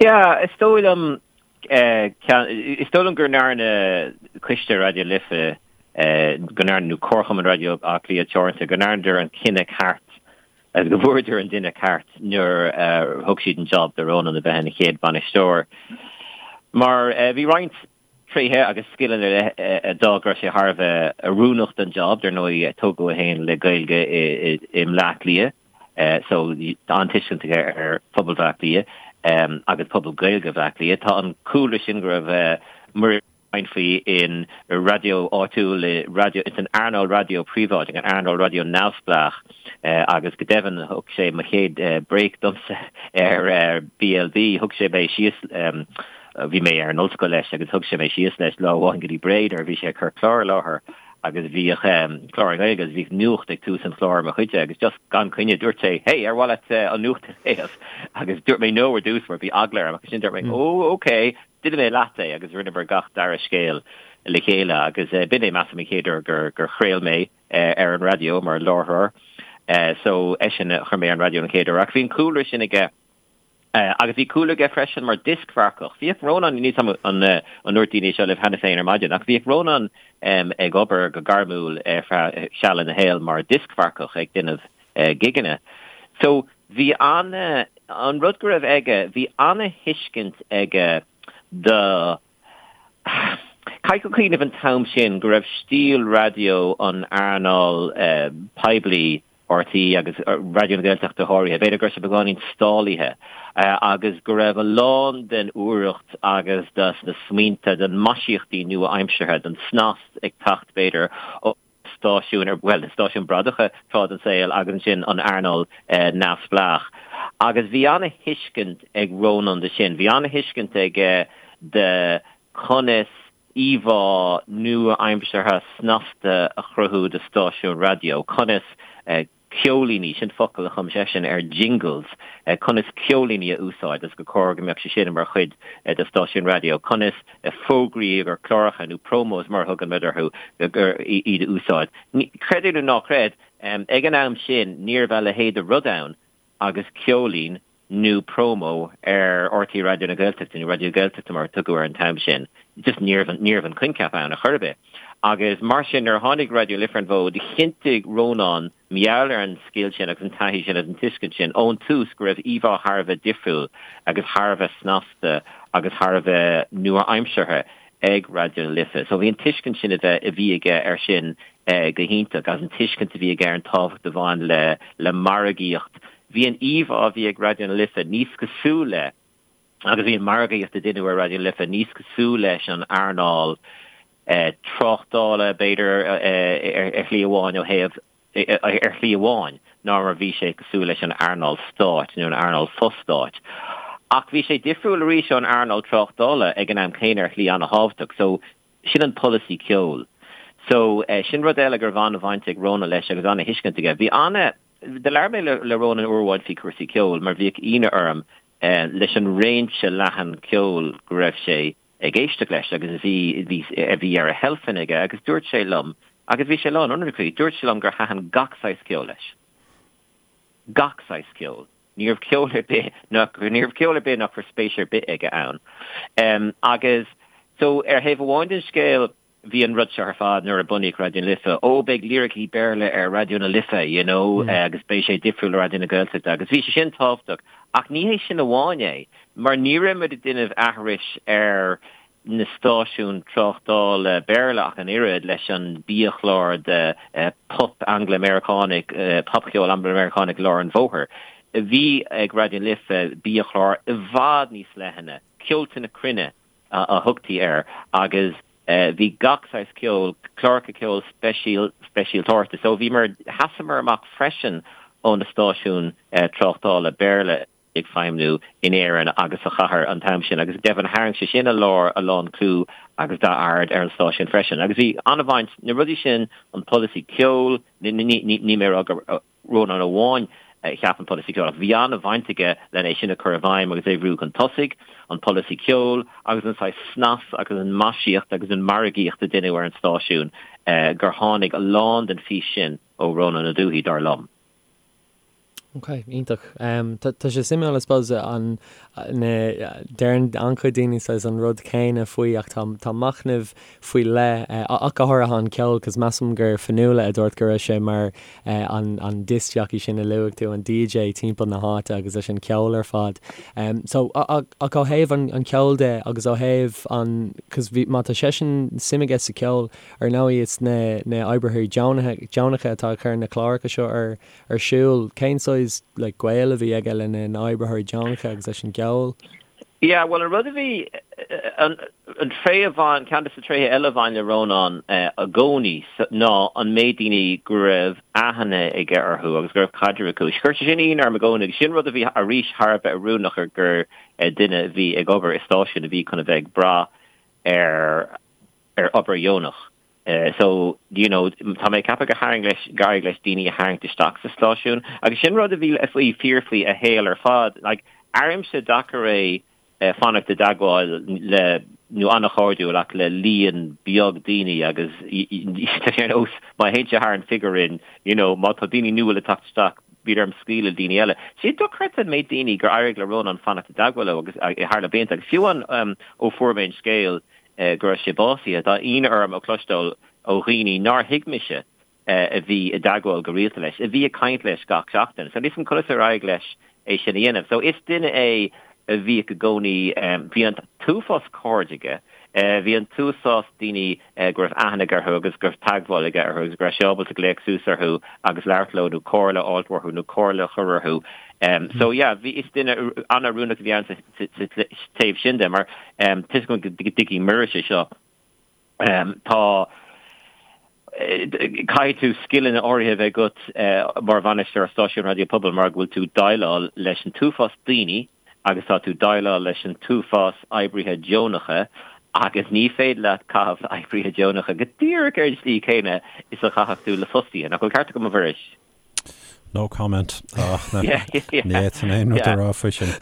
Yeah, is dóigh liom, is dóigh liom go ndearna Coiste Raidió Life, go ndearna, nó Comharchumann Raidió Átha Cliath Teoranta, go ndearnadar an cinneadh ceart. Agus go bhfuaireadar an duine ceart nuair a thug siad an job do Rónán a bheith ina chéad bhainisteoir. Mar bhí roinnt tréithe agus scileanna ar leith a d'fhág go raibh sé thar a bheith oiriúnach don job, dar ndóigh tógadh é féin le Gaeilge i mBleá Cliath so tá an-tuiscint aige ar phobal Bhleá Cliath agus pobal Gaeilge Bhleá Cliath. Tá an cúlra sin go raibh Muiris faoi in raidió áitiúil, i raidió, ins an earnáil raidió príobháideach, an earnáil raidió neamhspleách agus go deimhin thug sé mo chéad break domsa ar BLB, thug sé mé síos, bhí mé ar an ollscoil leis agus thug sé mé síos leis lá amháin go dtí Bré nuair a bhí sé ag cur clár i láthair agus bhíodh clár i nGaeilge agus bhíodh nuacht ag tús an chláir mo chuidse agus just gan coinne dúirt sé hey ar mhaith leat an nuacht a léamh agus dúirt mé no ar dtús mar bhí eagla orm agus ansin dúirt mé oh okay Déanfaidh mé leat é agus rinneamar gach dara scéal le chéile agus b'in é measaim an chéad uair gur gur chraol mé ar an raidió mar láithreoir. So eisean a chuir mé ar an raidió an chéad uair ach bhí an cúlra sin aige agus bhí cúlra aige freisin mar dioscmharcach. Bhíodh Rónán, níl 'fhios a'm an ndúirt daoine é seo libh cheana féin ar maidin ach bhíodh Rónán ag obair go gairmiúil ar feadh seal ina shaol mar dioscmharcach ag déanamh gigeanna. So bhí ana, an rud go raibh aige, bhí ana-thuiscint aige do, caithfidh tú cuimhneamh an t-am sin go raibh stíl raidió an earnáil poiblí, RTÉ agus Raidió na Gaeltachta go háirithe, b'fhéidir go raibh sé beagáinín stálaithe agus go raibh a lán den úireacht agus de na smaointe, den maisíochtaí nua-aimseartha, den snas ag teacht b'fhéidir ó stáisiúin ar, bhuel, na stáisiúin bradacha tráth den saol agus ansin an earnáil neamhspleách. Agus bhí ana-thuiscint ag Rónán de sin. Bhí ana-thuiscint aige de conas íomhá nua-aimseartha snasta a chruthú do stáisiún raidió, conas ceoilíní, sin focal a chum seisean ar jingles, conas ceoilíní a úsáid agus gur chóir go mbeadh sé sin mar chuid de stáisiún raidió, conas fógraí ar chláracha nó promos mar a thugann muid orthu, iad a úsáid. Creid é nó ná creid, ag an am sin ní raibh a leithéid de rud ann agus ceoilín nó promo ar RTÉ Raidió na Gaeltachta, nó Raidió Gaeltachta mar a tugadh air an t-am sin. Just ní raibh, ní raibh an coincheap ann ar chor ar bith. Agus mar sin, nuair a tháinig Raidió na Life ar an bhfód, chinntigh Rónán, mar gheall ar an scil sin agus an taithí sin agus an tuiscint sin ón tús go raibh íomhá thar a bheith difriúil agus thar a bheith snasta agus thar a bheith nua-aimseartha ag Raidió na Life. So bhí an tuiscint sin a bheith, a bhí aige air sin go hiontach agus an tuiscint a bhí aige ar an tábhacht a bhain le, le margaíocht. Bhí an íomhá a bhí ag Raidió na Life níos cosúil le, agus bhí an margaíocht a deineadh ar Raidió na Life níos cosúil leis an earnáil tráchtála, b'fhéidir, ar shlí amháin ó thaobh, ar shlí amháin, ná mar a bhí sé cosúil leis an earnáil stáit nó an earnáil fo-stáit. Ach bhí sé difriúil arís ón earnáil tráchtála ag an am céanna ar shlí an-thábhachtach. So, sin an polasaí ceoil. So, sin rud eile go raibh an-bhaint ag Rónán leis agus an-thuiscint aige. Bhí ana, do labhair mé le Rónán uair amháin faoi chúrsaí ceoil mar bhíodh ionadh orm leis an réimse leathan ceoil go raibh sé ag éisteacht leis agus a bhí, bhí, a bhí ar a sheilfeanna aige agus dúirt sé liom, agus bhí sé lán ionraic faoi, dúirt sé liom gur thaitin gach saghas ceoil leis. Gach saghas ceoil. Ní raibh ceol ar bith nach, ní raibh ceol ar bith nach raibh spéis ar bith aige ann. Agus so ar thaobh amháin den scéal, bhí an rud seo ar fad nuair a bunaíodh Raidió na Life, ó beidh liricí Béarla ar Raidió na Life, you know, agus beidh sé difriúil le Raidió na Gaeltachta agus bhí sé sin tábhachtach. Ach ní hé sin amháin é, mar ní raibh muid ag déanamh aithris ar na stáisiúin tráchtála Béarla ach an oiread leis an biachlár de pop Angla-Meiriceánach, popcheol Angla-Meiriceánach lár an bhóthair. Bhí ag Raidió na Life biachlár i bhfad níos leithne, ceolta na cruinne a thugtaí air agus bhí gach saghas ceoil, cláracha ceoil speisialtóireachta. So bhíomar, sheasamar amach freisin ó na stáisiúin tráchtála Béarla ag feidhmniú in Éirinn agus sa chathair an t-am sin agus go deimhin tharraing sé sin a lár a lán clú agus dath-aird ar an stáisiún freisin. Agus bhí an-bhaint, na rudaí sin, an polasaí ceoil, ní mé a rá gur Rónán amháin a cheap an polasaí ceoil ach bhí an-bhaint aige len é sin a chur i bhfeidhm agus é a bhrú chun tosaigh, an polasaí ceoil agus an saghas snas agus an maisíocht agus an margaíocht a deineadh ar an stáisiún gur tháinig a lán den fís sin ó Rónán Ó Dubhthaigh, dar liom. Ok, iontach. Tá sé suimiúil, I suppose, an, na, deireann an-chuid daoine saghas an rud céanna faoi ach tá, tá machnamh faoi leith, ach go háirithe an ceol, cos measaim gur Fionnuala a dúirt go raibh sé mar an, an disc jockey sin a luaigh tú, an DJ timpeall na háite agus leis an ceol ar fad. So, ach ó thaobh an, an ceoil de agus ó thaobh an, cos bhí, má tá seisean suim aige sa ceol, ar ndóigh is na, na oibrithe deonacha, deonacha atá ag cur na cláracha seo ar, ar siúl. Cén saghas like gaol a bhí aige lena na oibritheoirí deonacha agus leis an gceol? Yeah, bhuel an rud a bhí, an tréith a bhain, ceann de na tréithe eile a bhain le Rónán i gcónaí ná an méid daoine go raibh aithne aige orthu agus go raibh caidreamh acu. Chuir sé sin ionadh orm i gcónaí agus sin rud a bhí arís thar a bheith oiriúnach gur duine a bhí ag obair i stáisiún a bhí chun a bheith ag brath ar ar obair dheonach. So, you know, tá mé ag ceapadh gur tharraing leis, gur éirigh leis daoine a tharraingt isteach sa stáisiún agus sin rud a bhí faoi, fíor faoi a shaol ar fad. Like, airímse deacair é fanacht i dteagmháil le, nó an-chairdiúil ach le líon beag daoine agus tá sé ar nós má théann sé thar an figiúr sin, you know, má tá daoine nua le teacht isteach, bíonn orm scaoileadh le daoine eile. Sé dochreidte an méid daoine gur éirigh le Rónán fanacht i dteagmháil leo agus thar na blianta agus fiú amháin ó fuair mé an scéal go raibh sé básaithe. Tá ionadh orm a chloisteáil ó dhaoine nár thuig mise a bhí i dteagmháil go rialta leis, a bhí ag caint leis gach seachtain. So níl 'fhios a'm conas ar éirigh leis é sin a dhéanamh. So is duine é a bhíodh i gcónaí, bhí an t-uafás cairde aige, bhí an t-uafás daoine go raibh aithne aige orthu agus go raibh teagmháil aige orthu agus go raibh sé ábalta glaoch suas orthu agus labhairt leo nó comhairle a fháilt uathu nó comhairle a chur orthu. So yeah, bhí, is duine an-oiriúnach a bhí ann sa taobh sin de mar tá 'fhios agam go dtuigfidh Muiris é seo. Tá, caithfidh tú scileanna áirithe a bheith agat mar bhainisteoir stáisiún raidió pobail mar go bhfuil tú ag déileáil leis an t-uafás daoine agus tá tú ag déileáil leis an t-uafás oibrithe deonacha agus ní féidir leat caitheamh le oibrithe deonacha go díreach ar an tslí chéanna is a chaithfeadh tú le fostaithe. Nach bhfuil ceart agam a Mhuiris? No comment. Ach ní fhéadfainn aon rud a rá faoi sin.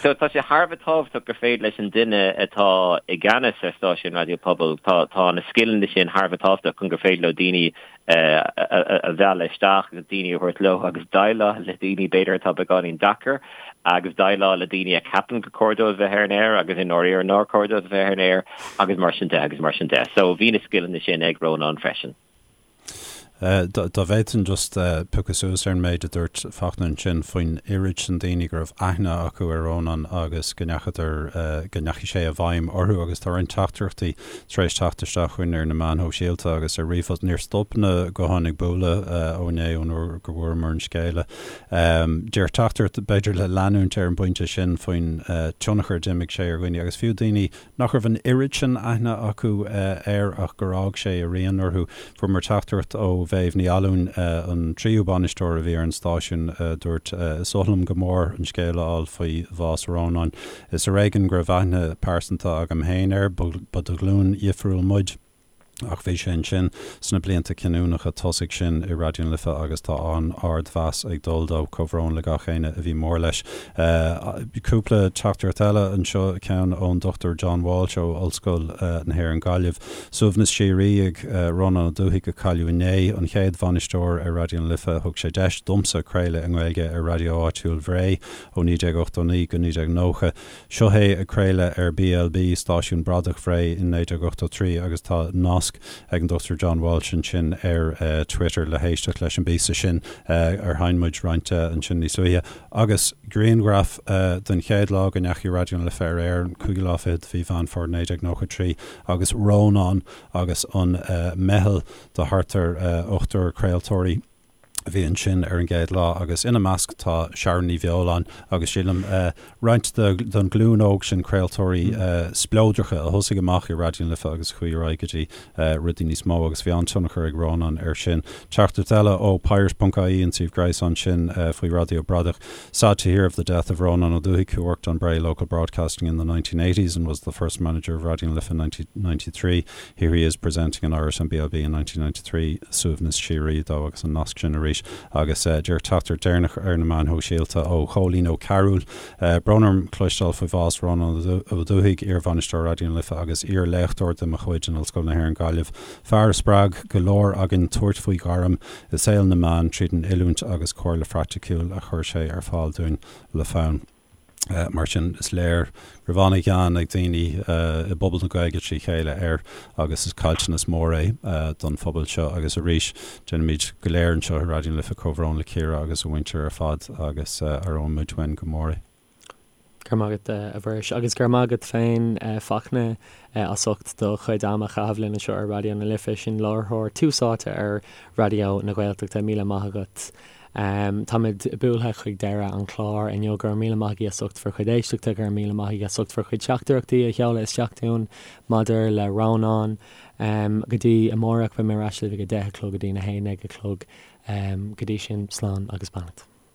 So tá sé thar a bheith tábhachtach gur féidir leis an duine atá i gceannas ar stáisiún raidió pobail, tá tá na scileanna sin thar a bheith tábhachtach chun gur féidir leo daoine a mhealladh isteach agus daoine a thabhairt leo agus déileáil le daoine b'fhéidir atá beagáinín deacair agus déileáil le daoine a cheapann gur cóir dóibh bheith ar an aer agus i ndáiríre nár chóir dóibh bheith ar an aer agus mar sin de agus mar sin de. So bhí na scileanna sin ag Rónán freisin. Dá bhféadfainn just piocadh suas ar an méid a dúirt Fachtna ansin faoin oiread sin daoine go raibh aithne acu ar Rónán agus go ndeachadar, go ndeachaigh sé i bhfeidhm orthu agus tá roinnt teachtaireachtaí tar éis teacht isteach chugainn ar na meáin shóisialta agus ar ríomhphost. Níor stop na gutháin ag bualadh ó inné ón uair go bhfuaireamar an scéala. Deir teachtaireacht, b'fhéidir le leanúint ar an bpointe sin faoin tionchar a d'imir sé ar dhaoine agus fiú daoine nach raibh an oiread sin aithne acu air ach gur fhág sé a rian orthu. Fuaireamar teachtaireacht ó Mhéabh Ní Fhallúin, an tríú bainisteoir a bhí ar an stáisiún, a dúirt, Is oth liom go mór an scéal a fháil faoi bhás Rónáin. Is ar éigean go raibh aithne pearsanta agam féin air, ba de ghlúin dhifriúil muid. Ach bhí sé ansin sna blianta cinniúnacha tosaigh sin i Raidió na Life agus tá an-ardmheas ag dul dó. Comhbhrón le gach éinne a bhí mór leis. Cúpla teachtaireacht eile anseo, ceann ón Dr John Walsh ó Ollscoil na hÉireann Gaillimh. Suaimhneas síoraí ag Rónán Ó Dubhthaigh a cailleadh inné, an chéad bhainisteoir ar Raidió na Life. Thug sé deis domsa craoladh i nGaeilge ar raidió áitiúil Bhré ó 1989 go 1990. Seo é ag craoladh ar BLB, stáisiún bradach Bhré, in 1983 agus tá nasc ag an Dr John Walsh ansin ar Twitter le héisteacht leis an bpíosa sin ar sheinn muid roinnt de ansin níos luaithe. Agus grianghraf den chéad lá go ndeachaigh Raidió na Life ar aer, an cúigiú lá fichead de mhí Mheán Fómhair 1993 agus Rónán agus an meitheal de thart ar ochtar craoltóirí. a bhí ansin ar an gcéad lá agus ina measc tá Sharon Ní Bheoláin agus sílim roinnt den ghlúin óg sin craoltóirí spleodracha a thosaigh amach i Raidió na Life agus a chuaigh ar aghaidh go dtí rudaí níos mó agus bhí an-tionchar ag Rónán air sin. Teachtaireacht eile ó pirate.ie, an suíomh gréasáin sin faoi Raidió Bradach. Sad to hear of the death of Rónán Ó Dubhthaigh who worked on Bray Local Broadcasting in the 1980s and was the first manager of Raidió na Life in 1993. Here he is presenting in Irish on BLB in 1993, suaimhneas síoraí dó agus an nasc sin arís. arís agus díreach teachtaireacht deireanach ar na meáin shóisialta ó Chóilín Ó Cearúil. Brón orm cloisteáil faoi bhás Rónán Ó Dubhthaigh, iar-bhainisteoir Raidió na Life agus iar-léachtóir de mo chuid in Ollscoil na hÉireann Gaillimh. Fear a spreag go leor againn tabhairt faoi ghairm i saol na meán tríd an oiliúint agus comhairle phraiticiúil a chuir sé ar fáil dúinn le fonn. Mar sin, is léir go raibh an-ghean ag daoine i bpobal na Gaeilge trí chéile air agus is caillteanas mór é don phobal seo. Agus arís, déanaimid go léir anseo i Raidió na Life comhbhrón le Ciara agus a mhuintir ar fad agus aireoidh muid uainn go mór é. Go raibh maith agat, a Mhuiris. Agus go raibh maith agat féin, Fachtna, as ucht do chuid ama a chaitheamh linn anseo ar Raidió na Life. Sin láithreoir Tús Áite ar Raidió na Gaeltachta. Míle maith agat. Táimid buailthe chuig deireadh an chláir inniu. Go raibh míle maith agaibh as ucht bhur chuid éisteachta. Go raibh míle maith agaibh as ucht bhur chuid teachtaireachtaí a sheoladh isteach dúinn maidir le Rónán. Go dtí amárach, beidh mé ar ais libh ag a 10 a chlog go dtí a 11 a chlog. Go dtí sin, slán agus beannacht.